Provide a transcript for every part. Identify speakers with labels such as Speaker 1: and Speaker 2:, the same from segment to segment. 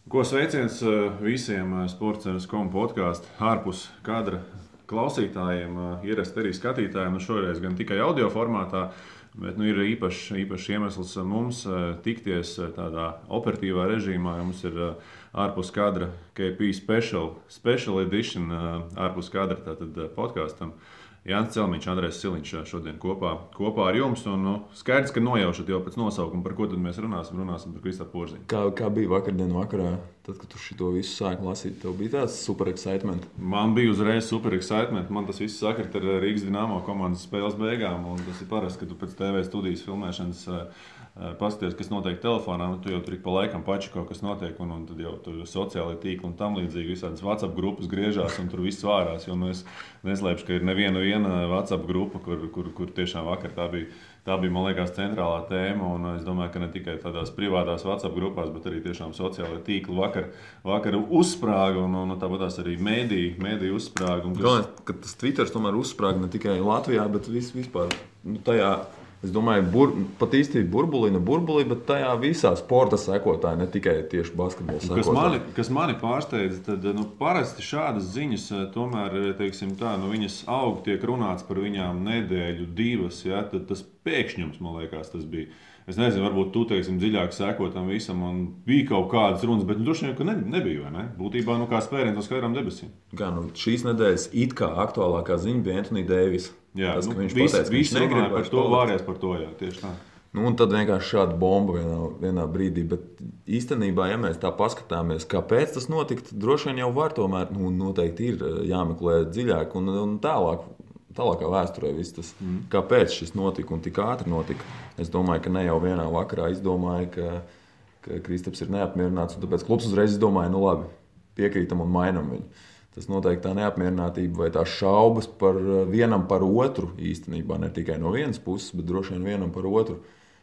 Speaker 1: Ko sveiciens visiem Sports.com podkāstu ārpus kadra klausītājiem, ierasti arī skatītājiem. Šoreiz gan tikai audio formātā, bet ir īpašs iemesls mums tikties tādā operatīvā režīmā. Mums ir ārpus kadra KP Special Edition ārpus kadra tātad podkāstam. Jānis Celmiņš, Andrejs Siliņš šodien kopā ar jums. Skaidrs, ka nojaušat jau pēc nosaukuma, par ko tad mēs runāsim par Kristapu Porziņu.
Speaker 2: Kā bija vakardien vakarā, tad, kad tu šito visu sāki lasīt, tev bija tāds super excitement?
Speaker 1: Man bija uzreiz super excitement. Man tas viss sakrit ar Rīgas Dinamo komandas spēles beigām. Un tas ir parasti, ka tu pēc TV studijas filmēšanas paskaties, kas notiek telefonā. Tu jau tur ik pa laikam pači kaut kas notiek. Un tad jau tur sociālai tīkli un tam līdzīgi visādas WhatsApp grupas griežās un tur viss vārās. Jo es neslēpšu, ka ir neviena WhatsApp grupa, kur tiešām vakar tā bija, man liekas, centrālā tēma. Un es domāju, ka ne tikai tādās privātās WhatsApp grupās, bet arī tiešām sociālai tīkli vakar uzsprāga. Un tāpat arī mēdī uzsprāga.
Speaker 2: Galvenais, ka tas Twitters tomēr uzsprāga ne tikai Latvijā, bet vispār tajā. Es domāju, pat īsti burbulī, bet tajā visā sporta sekotāji, ne tikai tieši basketbola sekotāji.
Speaker 1: Kas mani pārsteidz, tad parasti šādas ziņas tomēr, teiksim tā, viņas aug, tiek runāts par viņām nedēļu, divas, ja, tad tas pēkšņums, man liekas, tas bija. Es nezinu, varbūt tu, teiksim, dziļāk seko tam visam un bija kaut kādas runas, bet droši vien, ka nebija, vai ne? Būtībā, kā spēriens uz skaidrām debesīm.
Speaker 2: Šīs nedēļas it kā aktuālākā ziņa bija Anthony Davis.
Speaker 1: Jā, tas, viņš pateica, ka viņš negrib par to, vāries par to, jā, tieši tā.
Speaker 2: Un tad vienkārši šāda bomba vienā brīdī, bet īstenībā, ja mēs tā paskatāmies, kāpēc tas notika, tad droši vien jau var tomēr, noteikti ir jāmeklē dziļāk un tālākā vēsturē viss tas, kāpēc šis notika un tik ātri notika. Es domāju, ka ne jau vienā vakarā izdomāja, ka Kristaps ir neapmierināts, un tāpēc klubs uzreiz izdomāja, labi, piekrītam un mainam viņu. Tas noteikti tā neapmierinātība vai tā šaubas vienam par otru īstenībā, ne tikai no vienas puses, bet droši vien vienam par otru.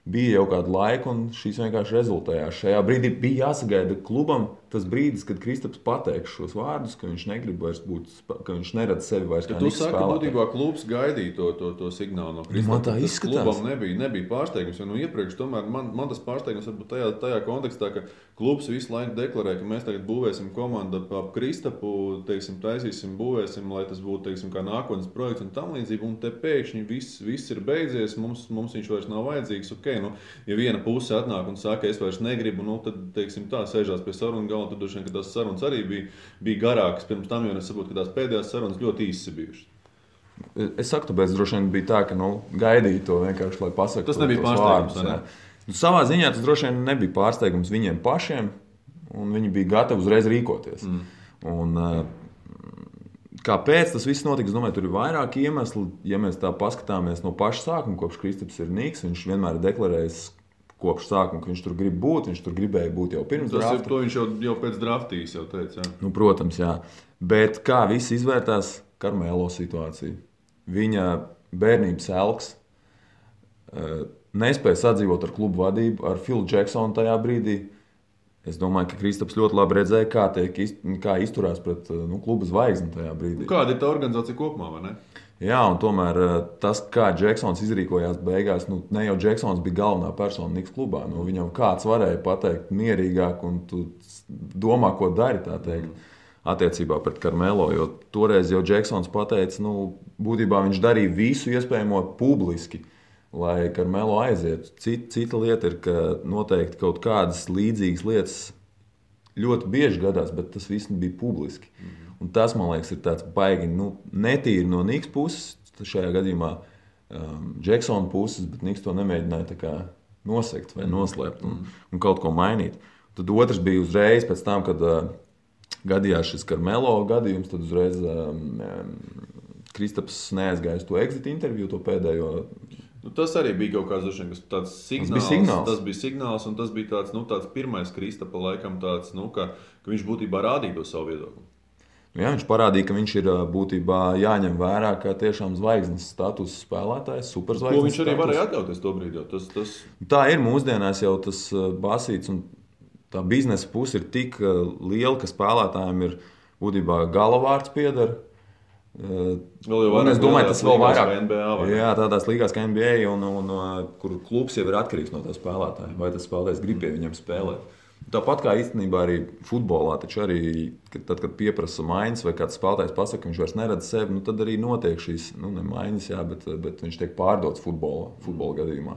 Speaker 2: Bija jau kādu laiku, un šīs vienkārši rezultējās. Šajā brīdī bija jāsagaida klubam tas brīdis, kad Kristaps pateiks šos vārdus, ka viņš negrib vairs būt, ka viņš neredz sevi vairs kā Niks spēlētāju.
Speaker 1: Tu saki, ka būtībā klubs gaidīja to signālu no Kristapa.
Speaker 2: Man tā izskatās.
Speaker 1: Klubam nebija pārsteigums, jo iepriekš tomēr man tas pārsteigums varbūt tajā kontekstā, ka klubs visu laiku deklarē, ka mēs tagad būvēsim komandu ap Kristapu, teiksim, taisīsim, būvēsim, lai tas būtu, teiksim, kā nākotnes projekts un tam līdzīgi, un te pēkšņi viss ir beidzies, mums viņš vairs nav vajadzīgs. Ja viena puse atnāk un saka, es vairs negribu, tad, teiksim, tā sēžās pie sarunu galda, tad droši vien, ka tās sarunas arī bija garākas pirms tam, jo es saprotu, ka tās pēdējās sarunas ļoti īsas bijušas.
Speaker 2: Es saku, tāpēc droši vien bija tā, ka gaidīja to vienkārši, lai pasaka.
Speaker 1: Tas nebija pārsteigums, ne?
Speaker 2: Savā ziņā tas droši vien nebija pārsteigums viņiem pašiem, un viņi bija gatavi uzreiz rīkoties. Un, kāpēc tas viss notika? Es domāju, tur ir vairāki iemesli. Ja mēs tā paskatāmies no paša sākuma, kopš Kristaps ir Niks, viņš vienmēr ir deklarējis kopš sākuma, ka viņš tur grib būt, viņš tur gribēja būt jau pirms drafta.
Speaker 1: To viņš jau pēc draftīs jau teica. Jā.
Speaker 2: Protams, jā. Bet kā viss izvērtās Karmelo situāciju? Viņa bērnības elks nespēja sadzīvot ar klubu vadību, ar Philu Jacksonu tajā brīdī. Es domāju, ka Kristaps ļoti labi redzēja, kā izturās pret kluba zvaigzni tajā brīdī.
Speaker 1: Kāda ir tā organizācija kopumā, vai ne?
Speaker 2: Jā, un tomēr tas, kā Jacksons izrīkojās beigās, ne jau Jacksons bija galvenā persona Niks klubā. Viņam kāds varēja pateikt mierīgāk, un tu domā, ko dari, tā teikt, attiecībā pret Karmelo. Jo toreiz jau Jacksons pateica, būtībā viņš darīja visu iespējamo publiski, lai Karmelo aizietu. Cita lieta ir, ka noteikti kaut kādas līdzīgas lietas ļoti bieži gadās, bet tas viss bija publiski. Un tas, man liekas, ir tāds baigi netīri no Niks puses, šajā gadījumā Jacksona puses, bet Niks to nemēģināja tā kā nosegt vai noslēpt un kaut ko mainīt. Tad otrs bija uzreiz pēc tam, kad gadījās šis Karmelo gadījums, tad uzreiz Kristaps neaizgāja uz to exit interviju, to pēdējo.
Speaker 1: Tas arī bija kaut kāds tāds signāls. Tas bija signāls, un tas bija tāds pirmais Kristapa laikam tāds, ka viņš būtībā rādīja to savu viedokli.
Speaker 2: Jā, viņš parādīja, ka viņš ir būtībā jāņem vērā kā tiešām zvaigznes status spēlētājs, superzvaigznes.
Speaker 1: Ko viņš arī varēja atļauties to brīdi.
Speaker 2: Tā ir mūsdienās jau tas basīts, un tā biznesa puse ir tik liela, ka spēlētājiem ir būtībā galavārds pieder. Es domāju, tas vēl vairāk
Speaker 1: NBA,
Speaker 2: jā, tādās līgās kā NBA, un kur klubs jau ir atkarīgs no tā spēlētāja. Vai tas spēlētājs grib pie viņam spēlēt? Tāpat kā īstenībā arī futbolā, taču arī tad, kad pieprasa maiņas vai kāds spēlētājs pasaka, ka viņš vairs neredz sevi, nu, tad arī notiek šīs ne maiņas, jā, bet viņš tiek pārdots futbola gadījumā.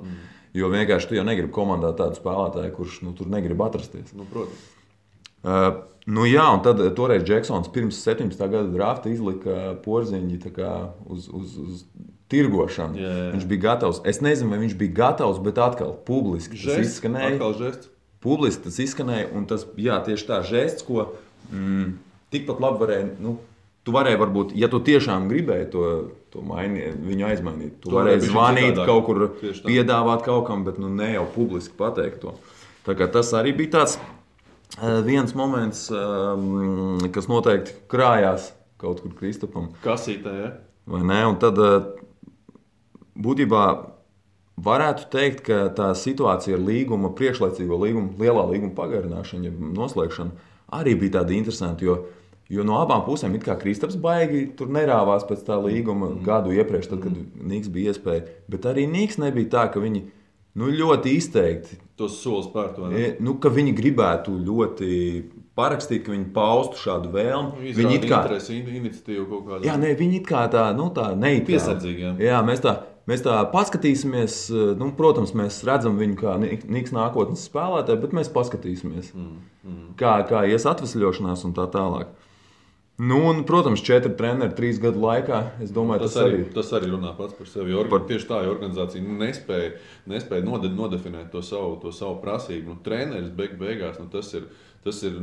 Speaker 2: Jo vienkārši tu jau negribi komandā tādu spēlētāju, kurš tur negrib atrasties.
Speaker 1: Nu, protams.
Speaker 2: Jā, un tad toreiz Džeksons pirms 17. gada drafta izlika Porziņģi uz tirgošanu.
Speaker 1: Jā.
Speaker 2: Viņš bija gatavs. Es nezinu, vai viņš bija gatavs, bet atkal publiski tas izskanēja.
Speaker 1: Atkal žests.
Speaker 2: Publiski tas izskanēja, un tas tieši tā žests, ko tikpat labi varēja. Tu varēji, varbūt, ja tu tiešām gribēji to viņu aizmainīt, tu varēji zvanīt kaut kur, piedāvāt kaut kam, bet ne jau publiski pateikt to. Tā kā tas arī bija tāds viens moments, kas noteikti krājās kaut kur Kristapam.
Speaker 1: Kasītē, ja?
Speaker 2: Vai ne? Un tad būtībā varētu teikt, ka tā situācija ar līguma, priekšlaicīgo līgumu, lielā līguma pagarināšanu, ja noslēgšanu, arī bija tāda interesanta, jo no abām pusēm it kā Kristaps baigi tur nerāvās pēc tā līguma gadu iepriekš, tad, kad Niks bija iespēja, bet arī Niks nebija tā, ka viņi ļoti izteikti
Speaker 1: tos solis pār to,
Speaker 2: ka viņi gribētu ļoti parakstīt, ka viņi paustu šādu vēlmu.
Speaker 1: Viņi it kā iniciatīvu kaut kādu.
Speaker 2: Jā, viņi it kā tā neitrāli.
Speaker 1: Piesardzīgi, jā.
Speaker 2: Jā, mēs tā paskatīsimies, protams, mēs redzam viņu kā Niks nākotnes spēlētāju, bet mēs paskatīsimies, kā ies atvesļošanās un tā tālāk. Un, protams, 4 treneri 3 gadu laikā, es domāju,
Speaker 1: tas arī runā pats par sevi. Tieši tā, ja organizācija nespēja nodefinēt to savu prasību. Treneris beigās, tas ir,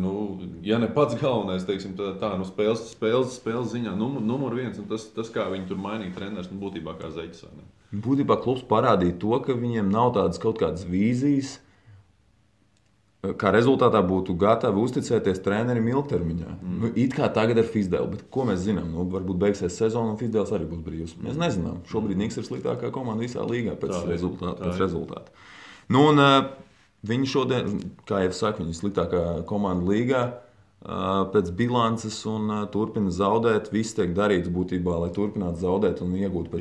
Speaker 1: ja ne pats galvenais, teiksim, tā spēles ziņā numur 1, un tas kā viņi tur mainīja treneris, būtībā kā zeķis.
Speaker 2: Būtībā klubs parādīja to, ka viņiem nav tādas kaut kādas vīzijas, kā rezultātā būtu gatavi uzticēties trenerim ilgtermiņā. It kā tagad ar Fizdēlu, bet ko mēs zinām? Varbūt beigsies sezona un Fizdēls arī būs brīvs. Mēs nezinām. Šobrīd Niks ir sliktākā komanda visā līgā pēc rezultāta. Un viņi šodien, kā jau saku, viņi ir sliktākā komanda līgā pēc bilances un turpina zaudēt. Viss tiek darīts būtībā, lai turpinātu zaudēt un iegūtu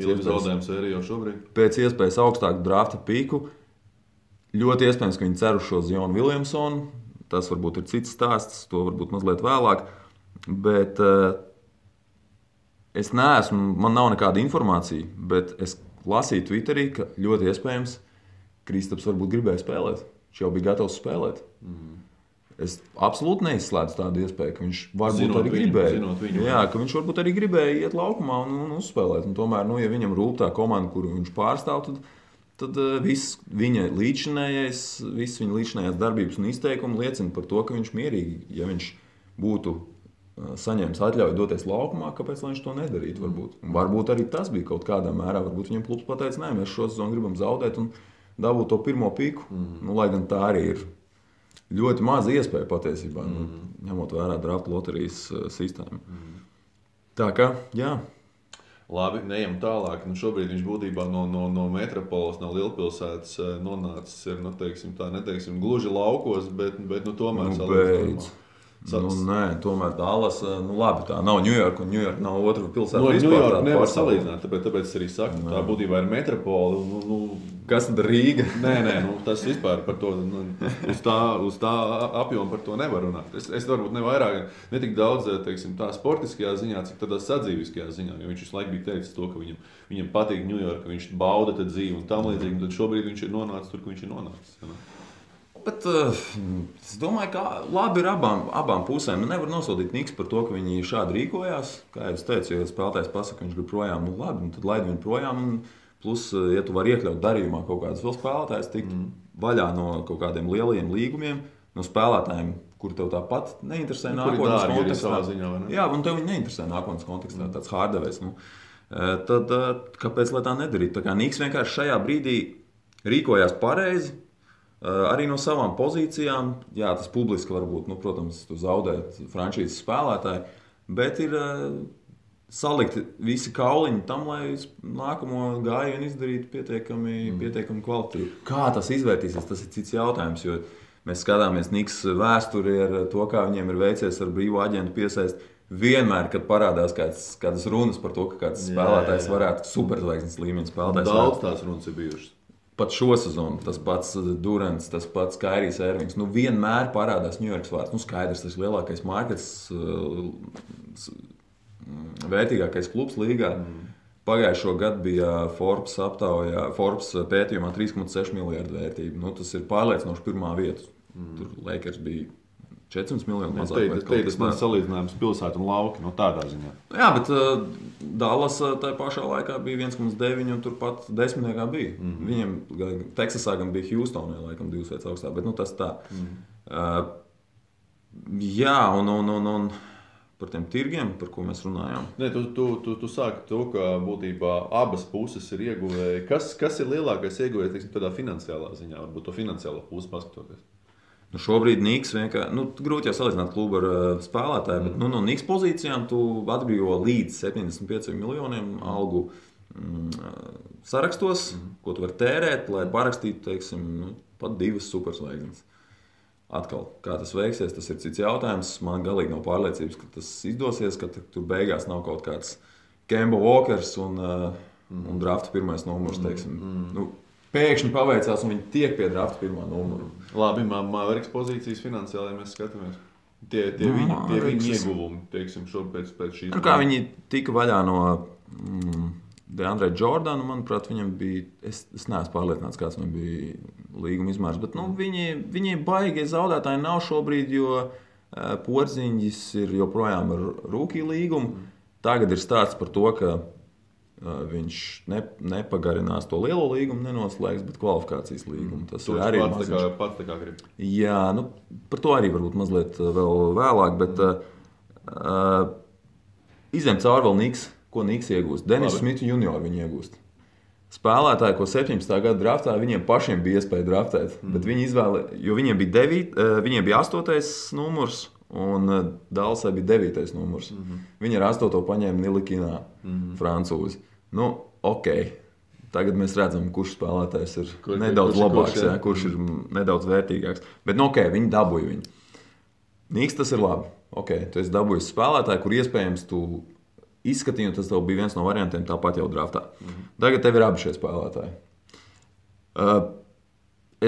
Speaker 2: pēc iespējas augstāku drafta pīku. Ļoti iespējams, ka viņi cer uz šo Zionu Viljamsonu. Tas varbūt ir cits stāsts, to varbūt mazliet vēlāk. Bet es neesmu, man nav nekāda informācija, bet es lasīju Twitterī, ka ļoti iespējams Kristaps varbūt gribēja spēlēt. Viņš jau bija gatavs spēlēt. Es absolūti neizslēdzu tādu iespēju, ka viņš varbūt arī gribēja. Jā, ka viņš varbūt arī gribēja iet laukumā un uzspēlēt. Un tomēr, ja viņam rūp tā komanda, kuru viņš pārstāv, tad viss viņa līdzinājās darbības un izteikumi liecina par to, ka viņš mierīgi, ja viņš būtu saņēmis atļauju doties laukumā, kāpēc viņš to nedarītu? Varbūt arī tas bija kaut kādā mērā. Varbūt viņam klubs pateica, nē, mēs šo sezonu gribam zaudēt un dabūt to pirmo pīku. Lai gan tā arī ir ļoti maza iespēja patiesībā, ņemot vērā drafta loterijas sistēmu. Tā kā, jā.
Speaker 1: Labi, neejam tālāk. Šobrīd viņš būtībā no metropoles, no lielpilsētas nonācis ir, neteiksim, gluži laukos, bet tomēr
Speaker 2: salīdzinājumā. Nē, tomēr Dallas, labi, tā nav Ņujorka, un Ņujorka nav otra pilsēta.
Speaker 1: Ņujorka nevar salīdzināt, tāpēc es arī saku, tā būtībā ir metropole.
Speaker 2: Kas tad Rīga?
Speaker 1: Nē, tas vispār par to, uz tā apjomu par to nevar runāt. Es varbūt ne tik daudz, teiksim, tā sportiskajā ziņā, cik tādā sadzīviskajā ziņā, jo viņš visu laiku bija teicis to, ka viņam patīk Ņujorka, viņš bauda tad dzīvi un tam līdzīgi, un tad šobrīd viņš ir nonācis tur, kur viņš ir nonācis.
Speaker 2: Bet es domāju, ka labi ir abām pusēm. Nevar nosodīt Niks par to, ka viņi šādi rīkojās. Kā jau es teicu, ja spēlētājs pasaka, ka viņš grib projām, labi, tad laid viņu projām. Plus, ja tu vari iekļaut darījumā kaut kādus vēl spēlētājus, tikt vaļā no kaut kādiem lielajiem līgumiem, no spēlētājiem, kuri tev tāpat neinteresē nākotnes kontekstā. Jā, un tev viņi neinteresē nākotnes kontekstā, tāds hārdevējs. Tad kāpēc lai tā nedarīt? Tā kā Niks vienkārši šajā brīdī rīkojās pareizi. Arī no savām pozīcijām, jā, tas publiski varbūt, protams, tu zaudēt frančīzes spēlētāji, bet ir salikti visi kauliņi tam, lai nākamo gājienu izdarītu pietiekami kvalitīvi. Kā tas izvērtīsies, tas ir cits jautājums, jo mēs skatāmies Niks vēsturi ar to, kā viņiem ir veicies ar brīvo aģentu piesaist. Vienmēr, kad parādās kādas runas par to, ka kāds spēlētājs varētu superzvaigznes līmeņa spēlētājs.
Speaker 1: Daudz tās runas ir bijušas.
Speaker 2: pat šo sezonu, tas pats Durants, tas pats Kairijs Irvings, vienmēr parādās Ņujorkas vārds. Skaidrs, tas ir lielākais markets, vērtīgākais klubs līgā. Pagājušo gadu bija Forbes pētījumā 3,6 miljardu vērtība. Tas ir pārliecinoši pirmā vieta. Tur Lakers bija 400 miljoni mazāk.
Speaker 1: Tas man salīdzinājums pilsētu un lauki, tādā ziņā.
Speaker 2: Jā, bet Dallas tajā pašā laikā bija 1,9 un turpat desmitniekā bija. Viņiem Teksasā gan bija Houstonē, laikam 2 vietas augstāk, bet tas tā. Jā, un par tiem tirgiem, par ko mēs runājām.
Speaker 1: Nē, tu sāki to, ka būtībā abas puses ir ieguvēji. Kas ir lielākais ieguvējs, teiksim, tādā finansiālā ziņā, varbūt to finansiālo pusi paskatoties?
Speaker 2: Šobrīd Niks vienkārši, grūti jau salīdzināt klubu ar spēlētāju, bet no Niks pozīcijām tu atbrīvo līdz 75 miljoniem algu sarakstos, ko tu vari tērēt, lai parakstītu, teiksim, pat 2 superzvaigznes. Atkal, kā tas veiksies, tas ir cits jautājums. Man galīgi nav pārliecības, ka tas izdosies, ka tur beigās nav kaut kāds Kemba Walkers un drafta pirmais numurs, teiksim. Pēkšņi paveicās, un viņi tiek pie drafta pirmā numura.
Speaker 1: Labi, Mavericks pozīcijas finansiāli, ja mēs skatāmies. Tie viņi ieguvumi, teiksim, šobrīd pēc šīs.
Speaker 2: Kā viņi tika vaļā no DeAndre Jordana, manuprāt, viņam bija, es neesmu pārliecināts, kāds viņam bija līguma izmērs, bet viņi baigi zaudētāji nav šobrīd, jo Porziņģis ir joprojām ar rookie līgumu. Tagad ir stāsts par to, ka viņš nepagarinās to lielo līgumu, nenoslēgs, bet kvalifikācijas līgumu. Tas ir arī
Speaker 1: pats tā kā grib.
Speaker 2: Jā, par to arī varbūt mazliet vēl vēlāk, bet izņem cauri vēl Niks. Ko Niks iegūst? Denis Smits junior viņi iegūst. Spēlētāji, ko 17. gada draftā, viņiem pašiem bija iespēja draftēt, bet viņi jo viņiem bija 8. numurs un Dallasai bija 9. numurs. Viņi ar 8. paņēma Nilikinā, francūzi. Ok. Tagad mēs redzam, kurš spēlētājs ir nedaudz labāks, kurš ir nedaudz vērtīgāks. Bet viņi dabūja viņu. Niks tas ir labi. Ok, tu esi dabūjis spēlētāju, kur iespējams tu izskatīju, tas tev bija viens no variantiem tāpat jau draftā. Tagad tev ir abi šie spēlētāji.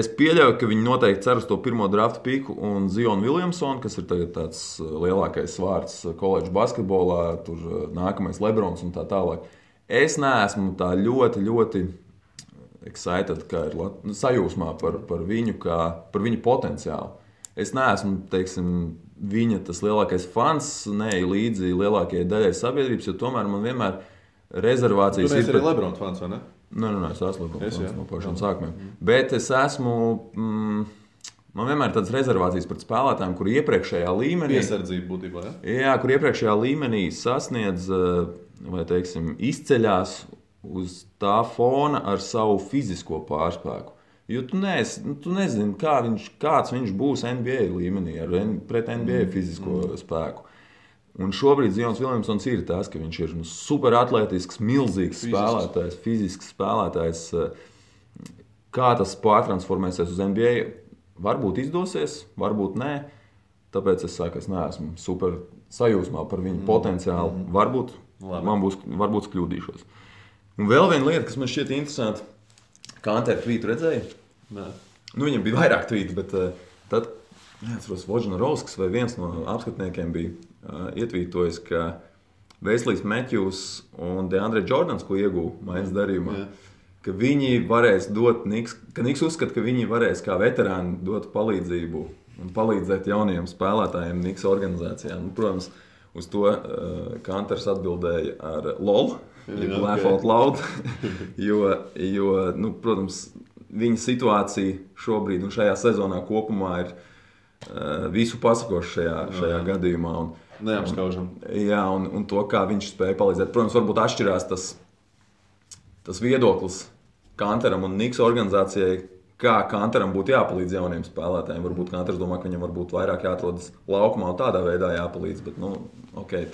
Speaker 2: Es pieļauju, ka viņi noteikti cer uz to pirmo drafta piku un Zionu Williamsonu, kas ir tagad tāds lielākais vārds koledžu basketbolā, tur nākamais Lebrons un tā tālāk. Es neesmu tā ļoti, ļoti excited, kā ir sajūsmā par viņu potenciālu. Es neesmu, teiksim, viņa tas lielākais fans, neeju līdzi lielākajai daļai sabiedrības, jo tomēr man vienmēr rezervācijas ir...
Speaker 1: Tu neesi arī Lebrona fans, vai ne?
Speaker 2: Nē, es esmu Lebrona fans no pašiem sākumiem. Bet es esmu... Man vienmēr ir tādas rezervācijas pret spēlētājiem, kur iepriekšējā līmenī...
Speaker 1: Piesardzība būtībā, ja?
Speaker 2: Jā, kur iepriekšējā līmenī sasniedz, vai teiksim, izceļās uz tā fona ar savu fizisko pārspēku. Jo tu nezini, kāds viņš būs NBA līmenī, pret NBA fizisko spēku. Un šobrīd Zions Williamsons ir tas, ka viņš ir superatletisks, milzīgs spēlētājs, fizisks spēlētājs. Kā tas pārtransformēsies uz NBA, varbūt izdosies, varbūt nē. Tāpēc es saku, es neesmu super sajūsmā par viņu potenciālu. Varbūt kļūdīšos. Un vēl viena lieta, kas man šķiet interesanti, Kanter tvītu redzēja?
Speaker 1: Nē.
Speaker 2: Viņam bija vairāk tvītu, bet tad, neatceros, Vožnarovskis vai viens no apskatniekiem bija ietvītojis, ka Veislīs Matthews un DeAndre Jordans, ko ieguva maiņas darījumā, ka viņi varēs dot ka Niks uzskata, ka viņi varēs kā veterāni dot palīdzību un palīdzēt jaunajiem spēlētājiem Niks organizācijā. Protams, uz to Kanters atbildēja ar LOL, laugh out loud, jo protams, viņa situācija šobrīd un šajā sezonā kopumā ir visu pasakoša šajā gadījumā.
Speaker 1: Neapskaužam.
Speaker 2: Jā, un to, kā viņš spēja palīdzēt. Protams, varbūt atšķirās tas viedoklis Kanteram un Niks organizācijai, kā Kanteram būtu jāpalīdz jauniem spēlētājiem. Varbūt Kanters domā, ka viņam varbūt vairāk jāatrodas laukumā un tādā veidā jāpalīdz, bet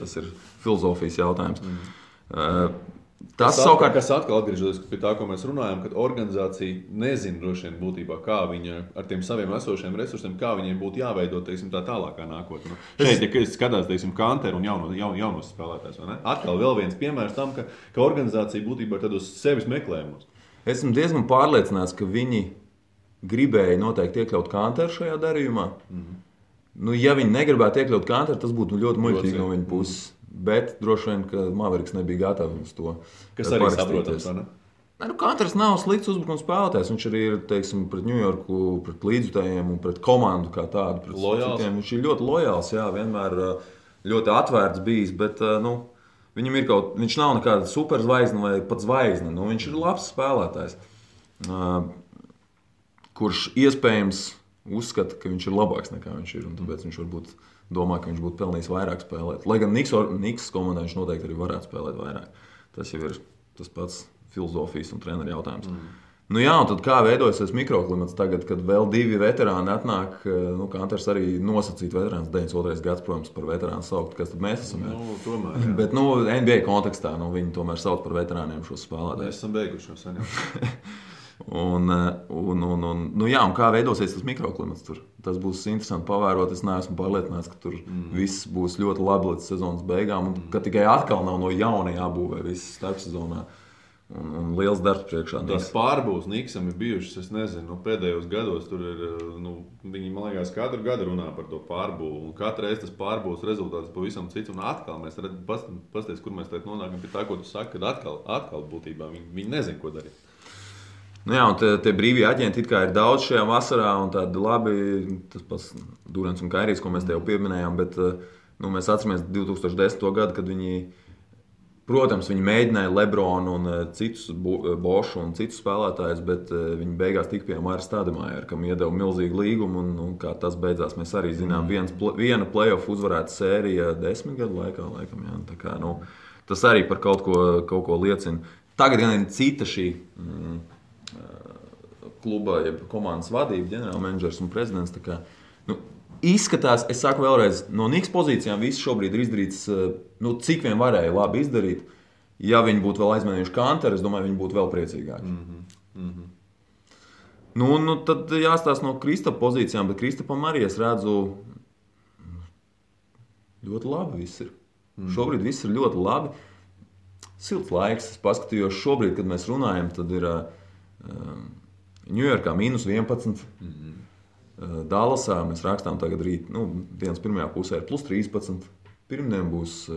Speaker 2: tas ir filozofijas jautājums. Tas savukārt,
Speaker 1: kas atkal atgriežoties pie tā, ko mēs runājam, kad organizācija nezina droši vien būtībā, kā viņa ar tiem saviem esošiem resursiem, kā viņiem būtu jāveido, teiksim, tā tālākā nākotne. Šeit, ja skatās, teiksim, Kanteru un jaunos spēlētājs, vai ne? Atkal vēl viens piemērs tam, ka organizācija būtībā ir tad uz sevis meklējumos.
Speaker 2: Esmu diezgan pārliecināts, ka viņi gribēja noteikti iekļaut Kanteru šajā darījumā. Nu, ja viņi negribētu iekļaut Kanteru, tas būtu ļoti muļķīgi no viņa puses. Bet droši vien, ka Mavericks nebija gatavs uz to.
Speaker 1: Kas arī saprotams, vai ne?
Speaker 2: Nu, Kanters nav slikts uzbrukuma spēlētājs. Viņš arī ir, teiksim, pret Ņujorku, pret līdzjutējiem un pret komandu kā tādu. Citiem. Viņš ir ļoti lojāls, jā, vienmēr ļoti atvērts bijis, bet, nu, viņam ir viņš nav nekāda superzvaigzne vai pat zvaigzne. Nu, viņš ir labs spēlētājs, kurš iespējams uzskata, ka viņš ir labāks nekā viņš ir. Un tāpēc viņš varbūt domā, ka viņš būtu pelnījis vairāk spēlēt. Lai gan Niks komandā viņš noteikti arī varētu spēlēt vairāk. Tas jau ir tas pats filozofijas un treneru jautājums. Nu jā, un tad kā veidojas tas mikroklimats tagad, kad vēl 2 veterāni atnāk, nu, Kanters arī nosacīt veterāns, 92. gads, protams, par veterānu saukt, kas tad mēs esam.
Speaker 1: Nu, tomēr, jā.
Speaker 2: Bet, nu, NBA kontekstā, nu, viņi tomēr sauc par veterāniem šos spēlētājus.
Speaker 1: Mēs esam beiguši jau sen jau.
Speaker 2: Nu jā, un kā veidosies tas mikroklimats tur? Tas būs interesanti pavērot. Es neesmu pārliecināts, ka tur viss būs ļoti labi līdz sezonas beigām, un ka tikai atkal nav no jauna jābūvē viss starpsezonā. Un liels darbs priekšā.
Speaker 1: Tās pārbūves Niksam ir bijušas, es nezinu, pēdējos gados tur ir, viņi, man liekas, katru gadu runā par to pārbūvu. Un katru reizi tas pārbūves rezultāts pavisam cits. Un atkal mēs pasties, kur mēs tagad nonākam pie tā, ko tu saki, kad atkal būtībā viņi nezin, ko darīt.
Speaker 2: Nu jā, un tie brīvie aģenti it kā ir daudz šajā vasarā, un tādi labi, tas pats Durants un Kairijs, ko mēs te jau pieminējām, bet nu, mēs atceramies 2010. Gadu, kad viņi, protams, viņi mēģināja Lebronu un citus Bošu un citus spēlētājus, bet viņi beigās tika pie Māra Stādemājera, kam iedeva milzīgu līgumu, un kā tas beidzās, mēs arī zinām, viena playoff uzvarēta sērija 10 gadu laikā, laikam, jā, tā kā, nu, tas arī par kaut ko liecina. Tagad gan ir cita šī kluba, jeb komandas vadība, ģenerālmenedžers un prezidents, tā kā, nu, izskatās, es saku vēlreiz, no Niks pozīcijām viss šobrīd ir izdarīts, nu, cik vien varēja labi izdarīt. Ja viņi būtu vēl aizmainījuši Kanteru, es domāju, viņi būtu vēl priecīgāki. Nu, tad jāstāsta no Kristapa pozīcijām, bet Kristapam arī es redzu ļoti labi viss ir. Šobrīd viss ir ļoti labi. Silts laiks, es paskatījos šobrīd, kad mēs runājam, tad ir Ņujorkā -11. Dallasā mēs rakstām tagad rīt, nu, dienas pirmajā pusē ir +13. Pirmdien būs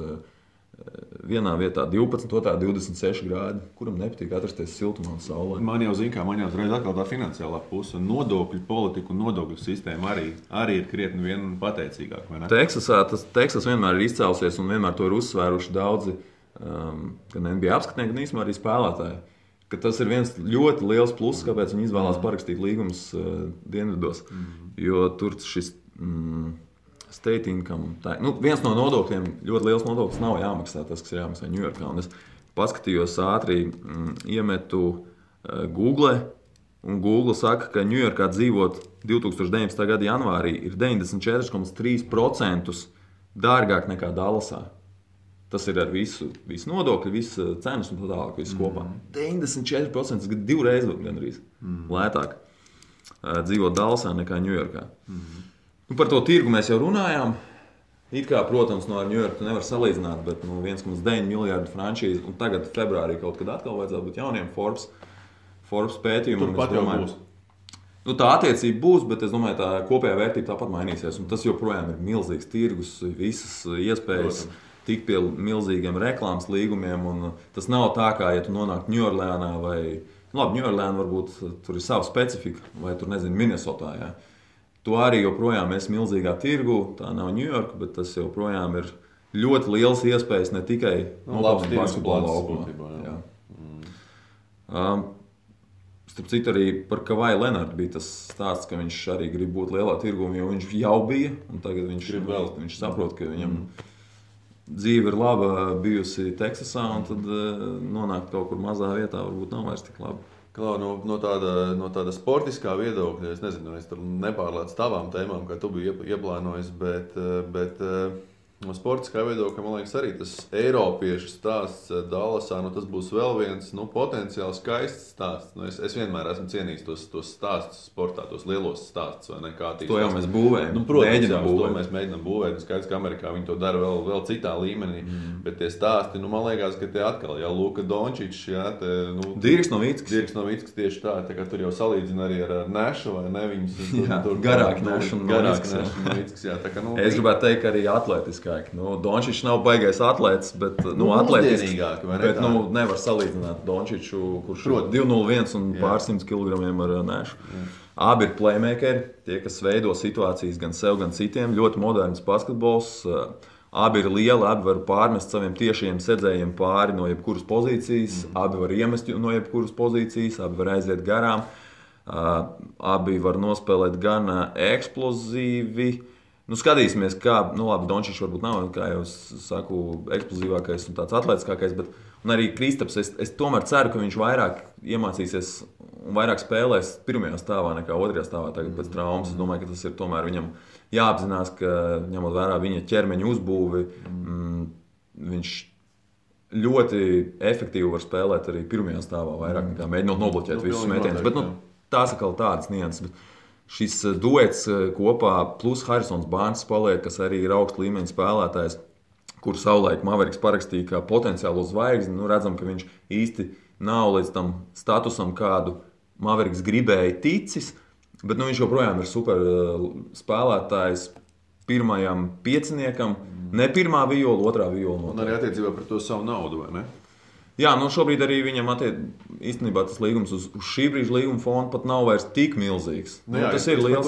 Speaker 2: vienā vietā 12, otrā 26 grādi. Kuram nepatīk atrasties siltumā un saulē?
Speaker 1: Man jau zina, kā man jau uzreiz atkal tā finansiālā puse. Nodokļu politika un nodokļu sistēma arī ir krietni vien pateicīgāk, vai ne?
Speaker 2: Teksas vienmēr ir izcēlusies un vienmēr to ir uzsvēruši daudzi, gan NBA apskatnieki, gan īstenībā arī spēlētāji. Ka tas ir viens ļoti liels pluss, kāpēc viņi izvēlās parakstīt līgumus dienvidos. Jo tur šis state income, nu, viens no nodokļiem, ļoti liels nodoklis nav jāmaksā, tas, kas ir jāmaksā Ņujorkā. Un es paskatījos ātri, iemetu Google, un Google saka, ka Ņujorkā dzīvot 2019. Gada janvārī ir 94,3% dārgāk nekā Dallasā. Tas ir ar visu nodokļu, visu cenas un tā tālāk, visu kopā. 94%, tas ir 2 reizes gandrīz lētāk dzīvot Dallasā nekā Ņujorkā. Nu, par to tirgu mēs jau runājām. It kā, protams, no Ņujorku nevar salīdzināt, bet 1,9 miljardu frančīzi, un tagad februārī kaut kad atkal vajadzētu būt jauniem Forbes pētījumiem.
Speaker 1: Turpat jau būs.
Speaker 2: Nu, tā attiecība būs, bet es domāju, tā kopējā vērtība tāpat mainīsies. Un tas joprojām ir milzīgs tirgus, visas iespējas. Protams. Tik pie milzīgiem reklāmas līgumiem, un tas nav tā, kā, ja tu nonāk Ņujorlēnā vai, labi, Ņujorlēna varbūt tur ir sava specifika, vai tur, nezinu, Minnesotā, jā. Tu arī joprojām esi milzīgā tirgu, tā nav Ņujorka, bet tas joprojām ir ļoti liels iespējas ne tikai
Speaker 1: labs
Speaker 2: basketbola laukumā. Starp citu arī par Kavai Lenardu bija tas stāsts, ka viņš arī grib būt lielā tirgu, jo viņš jau bija, un tagad viņš saprot, ka viņam dzīve ir laba bijusi Teksasā, un tad nonākt kaut kur mazā vietā varbūt nav vairs tik labi.
Speaker 1: Klau, no tāda sportiskā viedokļa, es nezinu, es tur nepārlēcu tavām tēmām, kā tu biji ieplānojis, bet No sportiskā viedokļa, man liekas, arī tas Eiropiešu stāsts Dallasā, tas būs vēl viens potenciāli skaists stāsts. Es vienmēr esmu cienījis tos stāstus sportā, tos lielos stāstus, vai ne?
Speaker 2: To jau mēs būvējam.
Speaker 1: Protams, to mēs mēģinām būvēt. Skaidrs, ka Amerikā viņi to dara vēl citā līmenī. Bet tie stāsti, man liekas, ka tie atkal, Luka Dončičs,
Speaker 2: Dirks
Speaker 1: Novickis tieši tā kā tur jau salīdzina arī ar Nešu, vai ne?
Speaker 2: Garāk Nešu un
Speaker 1: Novickis.
Speaker 2: Es gribētu teikt, ka arī atletiski. Dončičs nav baigais atlētis, bet
Speaker 1: atletisks,
Speaker 2: bet nevar salīdzināt Dončiču, kurš ir 201 un pārsimts kilogramiem ar Nešu. Abi ir playmakeri, tie, kas veido situācijas gan sev, gan citiem. Ļoti moderns basketbols. Abi ir lieli, abi var pārmest saviem tiešiem sedzējiem pāri no jebkuras pozīcijas. Abi var iemest no jebkuras pozīcijas, abi var aiziet garām. Abi var nospēlēt gan eksplozīvi. Skatīsimies, kā, labi, Dončičs varbūt nav, kā jau saku, eksplozīvākais un tāds atletiskākais, bet arī Kristaps, es tomēr ceru, ka viņš vairāk iemācīsies un vairāk spēlēs pirmajā stāvā nekā otrajā stāvā tagad pēc traumas. Es domāju, ka tas ir tomēr viņam jāapzinās, ka ņemot vērā viņa ķermeņa uzbūvi, viņš ļoti efektīvi var spēlēt arī pirmajā stāvā vairāk nekā mēģinot nobloķēt visus metienus. Bet tās atkal tādas nianses. Šis duets kopā, plus Harisons Barnes paliek, kas arī ir augsta līmeņa spēlētājs, kur savulaik Mavericks parakstīja kā potenciālo zvaigzni. Redzam, ka viņš īsti nav līdz tam statusam, kādu Mavericks gribēja ticis, bet viņš joprojām ir super spēlētājs pirmajam pieciniekam. Ne pirmā viola, otrā viola.
Speaker 1: Un arī attiecībā par to savu naudu, vai ne?
Speaker 2: Jā, šobrīd arī viņam īstenībā tas līgums uz šī brīža līguma fonda pat nav vairs tik milzīgs. Tas ir liels.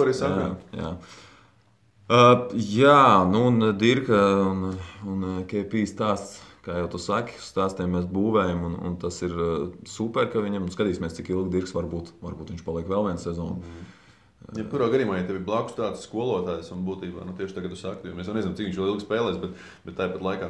Speaker 2: Un Dirka un KP stāsts, kā jau tu saki, stāstiem mēs būvējam, un tas ir super, ka viņam skatīsimies, cik ilgi Dirks varbūt viņš paliek vēl vienu sezonu.
Speaker 1: Jebkurā gadījumā, ja tev ir blakus tāds skolotājs un būtībā tieši tagad tu saki, jo mēs jau nezinām, cik viņš vēl ilgi spēlēs, bet tāpat laikā,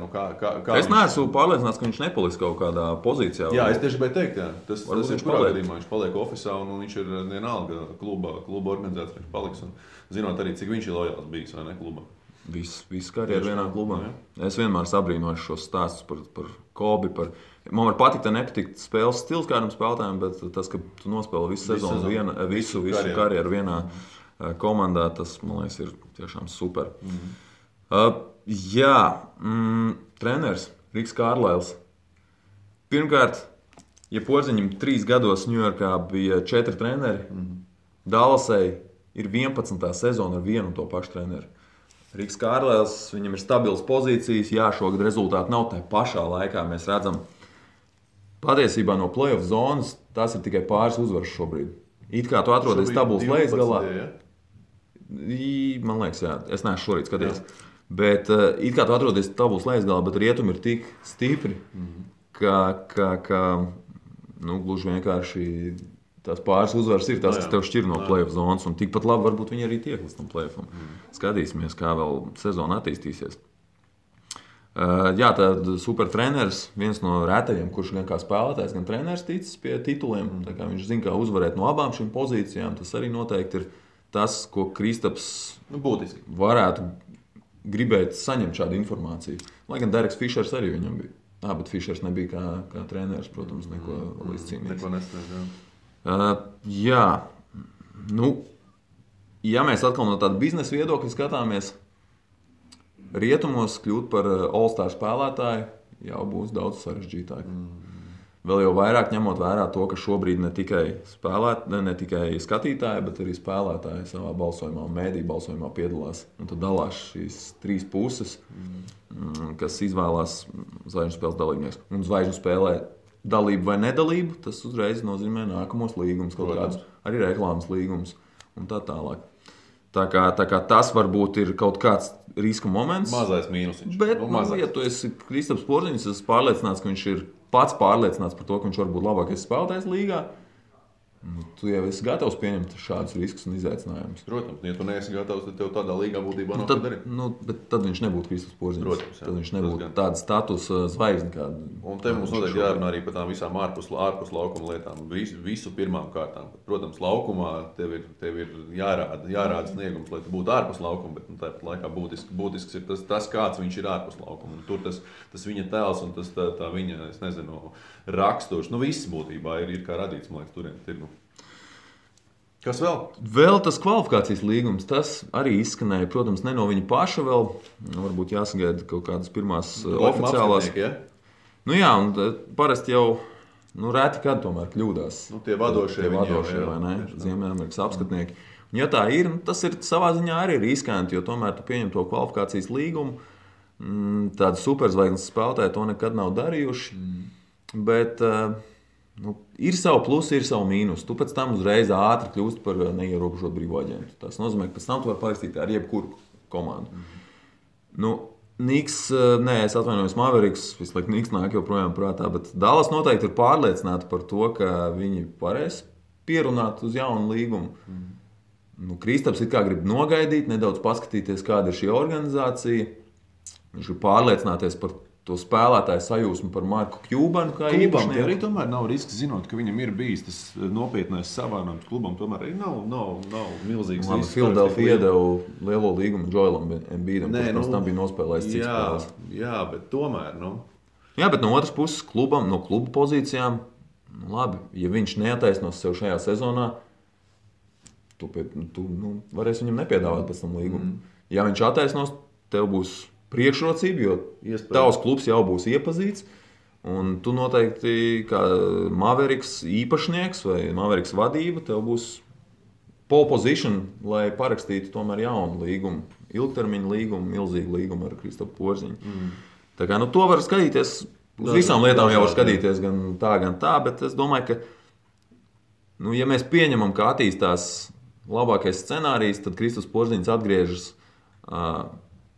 Speaker 1: kā
Speaker 2: es neesmu pārliecināts, ka viņš nepaliks kaut kādā pozīcijā.
Speaker 1: Jā, es tieši gribēju teikt, tas ir jebkurā gadījumā, viņš paliek ofisā un viņš ir vienalga kluba organizēts, viņš paliks un zinot arī, cik viņš ir lojāls bijis, vai ne, klubā.
Speaker 2: Viss karjeru vienā klubā. Es vienmēr sabrīnoju šos stāstus par Kobi, man var patikt, nepatikt spēles stils kādam spēlētājam, bet tas, ka tu nospēli visu sezonu, visu karjeru vienā komandā, tas, man liekas, ir tiešām super. Treneris Riks Kārlails. Pirmkārt, ja Porziņam 3 gados Ņujorkā bija 4 treneri, Dallasai ir 11. sezona ar vienu un to pašu treneri. Riks Kārlails, viņam ir stabils pozīcijas, šogad rezultāti nav tajā pašā laikā. Mēs redzam, patiesībā no playoff zonas tas ir tikai pāris uzvaras šobrīd. It kā tu atrodies tabulas lejasgalā. Man liekas, jā, es neesmu šorīt skatījies. Bet it kā tu atrodies tabulas lejasgalā, bet rietumi ir tik stipri, ka gluži vienkārši tās pāris uzvaras ir tas, kas tev šķir no playoff zonas, un tikpat labi varbūt viņi arī tiek līdz tam playoffam. Skatīsimies, kā vēl sezona attīstīsies. Tad super treneris, viens no retajiem, kurš gan kā spēlētājs, gan treneris ticis pie tituliem. Tā kā viņš zina, kā uzvarēt no abām šīm pozīcijām. Tas arī noteikti ir tas, ko Kristaps
Speaker 1: būtiski
Speaker 2: varētu gribēt saņemt šādu informāciju. Lai gan Dereks Fišers arī viņam bija. Bet Fišers nebija kā treneris, protams, neko līdz cīnīties.
Speaker 1: Neko nesniedz,
Speaker 2: ja mēs atkal no tāda biznesa viedokļa skatāmies, rietumos kļūt par All-Star spēlētāju jau būs daudz sarežģītāk. Vēl jau vairāk ņemot vērā to, ka šobrīd ne tikai skatītāji, bet arī spēlētāji savā balsojumā un mēdī balsojumā piedalās. Un tad dalās šīs 3 puses, kas izvēlās zvaigžņu spēles dalībnieks. Un zvaigžņu spēlē dalību vai nedalību, tas uzreiz nozīmē nākamos līgumus, kaut kādus arī reklāmas līgumus un tā tālāk. Tā kā tas varbūt ir kaut kāds riska moments.
Speaker 1: Mazais mīnusiņš.
Speaker 2: Bet, ja tu esi Kristaps Porziņš, es pārliecināts, ka viņš ir pats pārliecināts par to, ka viņš var būt labākais spēlētājs līgā. Tu jau esi gatavs pieņemt šādus riskus un izaicinājumus.
Speaker 1: Protams, ja tu neesi gatavs, tad tev tādā līgā būtībā nav
Speaker 2: tad,
Speaker 1: ko darīt.
Speaker 2: Bet tad viņš nebūtu Kristaps Porziņš.
Speaker 1: Protams, jā.
Speaker 2: Tad viņš nebūtu tāds status zvaigzne.
Speaker 1: Un te mums noteikti jārunā arī par tām visām ārpus laukuma lietām. Visu pirmām kārtām. Protams, laukumā tev ir jārāda sniegums, lai tu būtu ārpus laukuma, bet tāpat laikā būtisks ir tas, kāds viņš ir ārpus laukuma. Un tur tas viņa tēls un tas tā viņa, es nezinu, raksturs. Viss būtībā ir kā radīts, man liekas, turien tirgu. Kas vēl?
Speaker 2: Vēl tas kvalifikācijas līgums, tas arī izskanēja, protams, ne no viņa paša vēl. Varbūt jāsagaida kaut kādas pirmās oficiālās.
Speaker 1: Ja?
Speaker 2: Jā, un parasti jau reti kad tomēr kļūdās.
Speaker 1: Tie vadošie
Speaker 2: vai ne? Ziemeļamerikas apskatnieki. Un ja tā ir, tas ir savā ziņā arī riskanti, jo tomēr tu pieņem to kvalifikācijas līgumu. Tādi superzvaigznes spēlētāji to nekad nav darījuši. Bet ir savu plusu, ir savu mīnusu. Tu pēc tam uzreiz ātri kļūsti par neierobežotu brīvo aģentu. Tas nozīmē, ka pēc tam tu vari parakstīt ar jebkuru komandu. Niks, es atvainojos, Mavericks, visu laiku Niks nāk joprojām prātā, bet Dallas noteikti ir pārliecināti par to, ka viņi varēs pierunāt uz jaunu līgumu. Kristaps it kā grib nogaidīt, nedaudz paskatīties, kāda ir šī organizācija. Viņš grib pārliecināties par to spēlētāju sajūsmu par Marku Kjūbanu kā īpašnieku.
Speaker 1: Arī tomēr nav risks, zinot, ka viņam ir bijis tas nopietnais savānojums klubam. Tomēr arī nav milzīgs risks.
Speaker 2: Philadelphia iedeva lielo līgumu Joelam Embiidam, kurš tam bija nospēlējis cits spēles.
Speaker 1: Jā, bet tomēr.
Speaker 2: Jā, bet no otras puses klubam, no kluba pozīcijām, labi, ja viņš neataisnos sev šajā sezonā, tu varēsi viņam nepiedāvāt pēc tam līgumu. Ja viņš attaisnos, tev būs priekšrocība, jo tavs klubs jau būs iepazīts. Un tu noteikti, kā Mavericks īpašnieks vai Mavericks vadība, tev būs pole position, lai parakstītu tomēr jaunu līgumu. Ilgtermiņa līgumu, milzīgu līgumu ar Kristapu Porziņu. Tā kā to var skatīties, uz visām lietām jau var skatīties gan tā, bet es domāju, ka ja mēs pieņemam, ka attīstās labākais scenārijs, tad Kristaps Porziņš atgriežas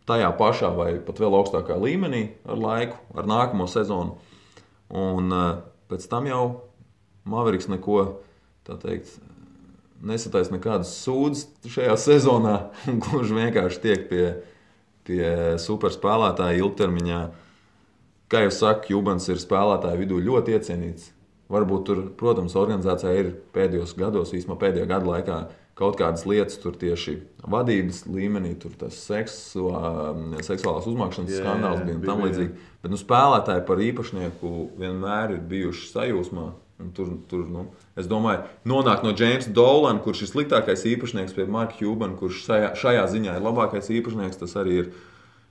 Speaker 2: tajā pašā vai pat vēl augstākā līmenī ar laiku, ar nākamo sezonu. Un pēc tam jau Mavericks neko, tā teikt, nesataisa nekādas sūdzes šajā sezonā, un gluži vienkārši tiek pie superspēlētāja ilgtermiņā. Kā jau saku, Kjūbans ir spēlētāju vidū ļoti iecienīts. Varbūt tur, protams, organizācijā ir pēdējos gados, īsumā pēdējā gada laikā, kaut kādas lietas tur tieši vadības līmenī, tur tas seksuālās uzmākšanas skandāls bija un tam līdzīgi. Bet spēlētāji par īpašnieku vienmēr ir bijuši sajūsmā. Un tur, es domāju, nonāk no Jamesa Dolana, kurš ir sliktākais īpašnieks, pie Marka Kjūbana, kurš šajā ziņā ir labākais īpašnieks, tas arī ir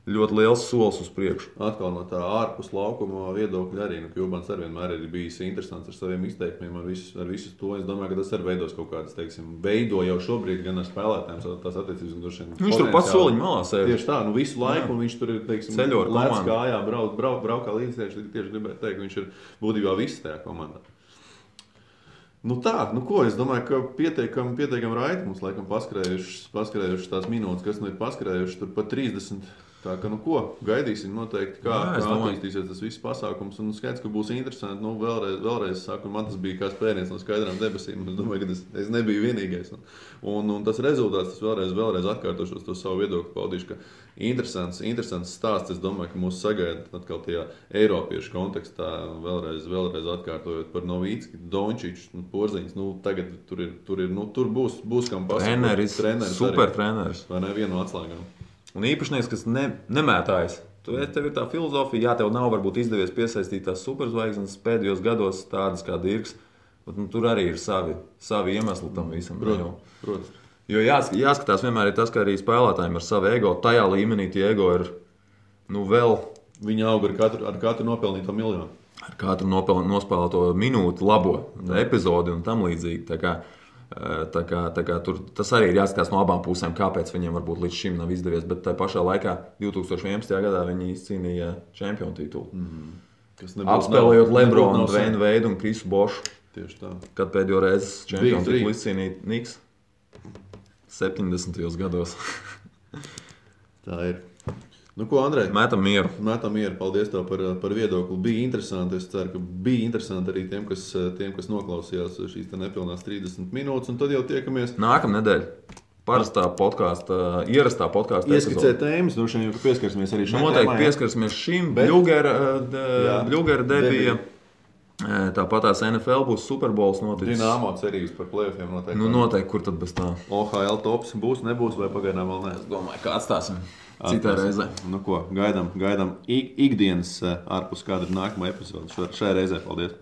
Speaker 2: ļoti liels solis uz priekšu.
Speaker 1: Atkal no tā ārpus laukuma viedokļa arī. Kjūbans arī vienmēr ir bijis interesants ar saviem izteikumiem, ar visu to. Es domāju, ka tas arī veidos kaut kādas, veido jau šobrīd gan ar spēlētājiem tās attiecības.
Speaker 2: Viņš tur pats soliņu malā sēž.
Speaker 1: Tieši tā, visu laiku, un viņš tur ir,
Speaker 2: ceļo ar
Speaker 1: lēc kājā, braukā līdz tieši gribētu teikt, ka viņš ir būtībā viss tajā komandā. Ko es domāju, ka pietiekami raiti mums laikam paskrējušas tās minūtes, kas ir paskrējušas tur pa 30. Tā kā, gaidīsim noteikti, kā attīstīsies tas viss pasākums. Un skaidrs, ka būs interesanti. Vēlreiz saku, man tas bija kā spēriens no skaidrām debesīm. Es domāju, ka es nebiju vienīgais. Un tas rezultāts, tas vēlreiz atkārtošos to savu viedokli paudīšu, ka interesants stāsts. Es domāju, ka mūs sagaida atkal tajā eiropiešu kontekstā, vēlreiz atkārtojot par Novīcki, Dončiču, Porziņš. Tagad tur būs kam pasakot.
Speaker 2: Treneris, super treneris.
Speaker 1: Vai ne, vienu no atslēgām.
Speaker 2: Un īpašnieks, kas nemētājas. Tev ir tā filozofija, jā, tev nav varbūt izdevies piesaistīt tās superzvaigznes pēdējos gados tādas kā Dirks, bet tur arī ir savi iemesli tam visam.
Speaker 1: Protams.
Speaker 2: Jo jāskatās vienmēr ir tas, ka arī spēlētājiem ar savu ego, tajā līmenī tie ego ir vēl...
Speaker 1: Viņi aug ar katru nopelnīto miljonu.
Speaker 2: Ar katru nospēlēto minūti labo epizodi un tam līdzīgi. Tā kā tur tas arī ir jāskatās no abām pusēm, kāpēc viņiem varbūt līdz šim nav izdevies. Bet tajā pašā laikā 2011. gadā viņi izcīnīja čempionu titulu. Apspēlējot Lebronu, Dwayne Wade un Krisu Bošu.
Speaker 1: Tieši tā.
Speaker 2: Kad pēdējo reizi čempionu titulu izcīnīja Niks 70. gados.
Speaker 1: Tā ir. Nu, ko, Andrej?
Speaker 2: Mētam mieru.
Speaker 1: Mētam mieru. Paldies tev par viedokli. Bija interesanti. Es ceru, ka bija interesanti arī tiem, kas noklausījās šīs nepilnās 30 minūtes. Un tad jau tiekamies.
Speaker 2: Nākamā nedēļa. Parastā podkāsta, ierastā podkāstā.
Speaker 1: Ieskicē tēmas, droši vien, ka pieskarsimies arī šim.
Speaker 2: Noteikti pieskarsimies šim. Bļugera debija. Tāpat tās NFL būs Superbowls noticis.
Speaker 1: Dinamo cerības par play-offiem noteikti.
Speaker 2: Nu, noteikti, kur tad bez tā?
Speaker 1: OHL tops būs, nebūs, vai pagaidām vēl ne?
Speaker 2: Es domāju, kā atstāsim citai reizē.
Speaker 1: Nu ko, gaidām ikdienas ārpus kāda ir nākamā epizode šai reizē. Paldies!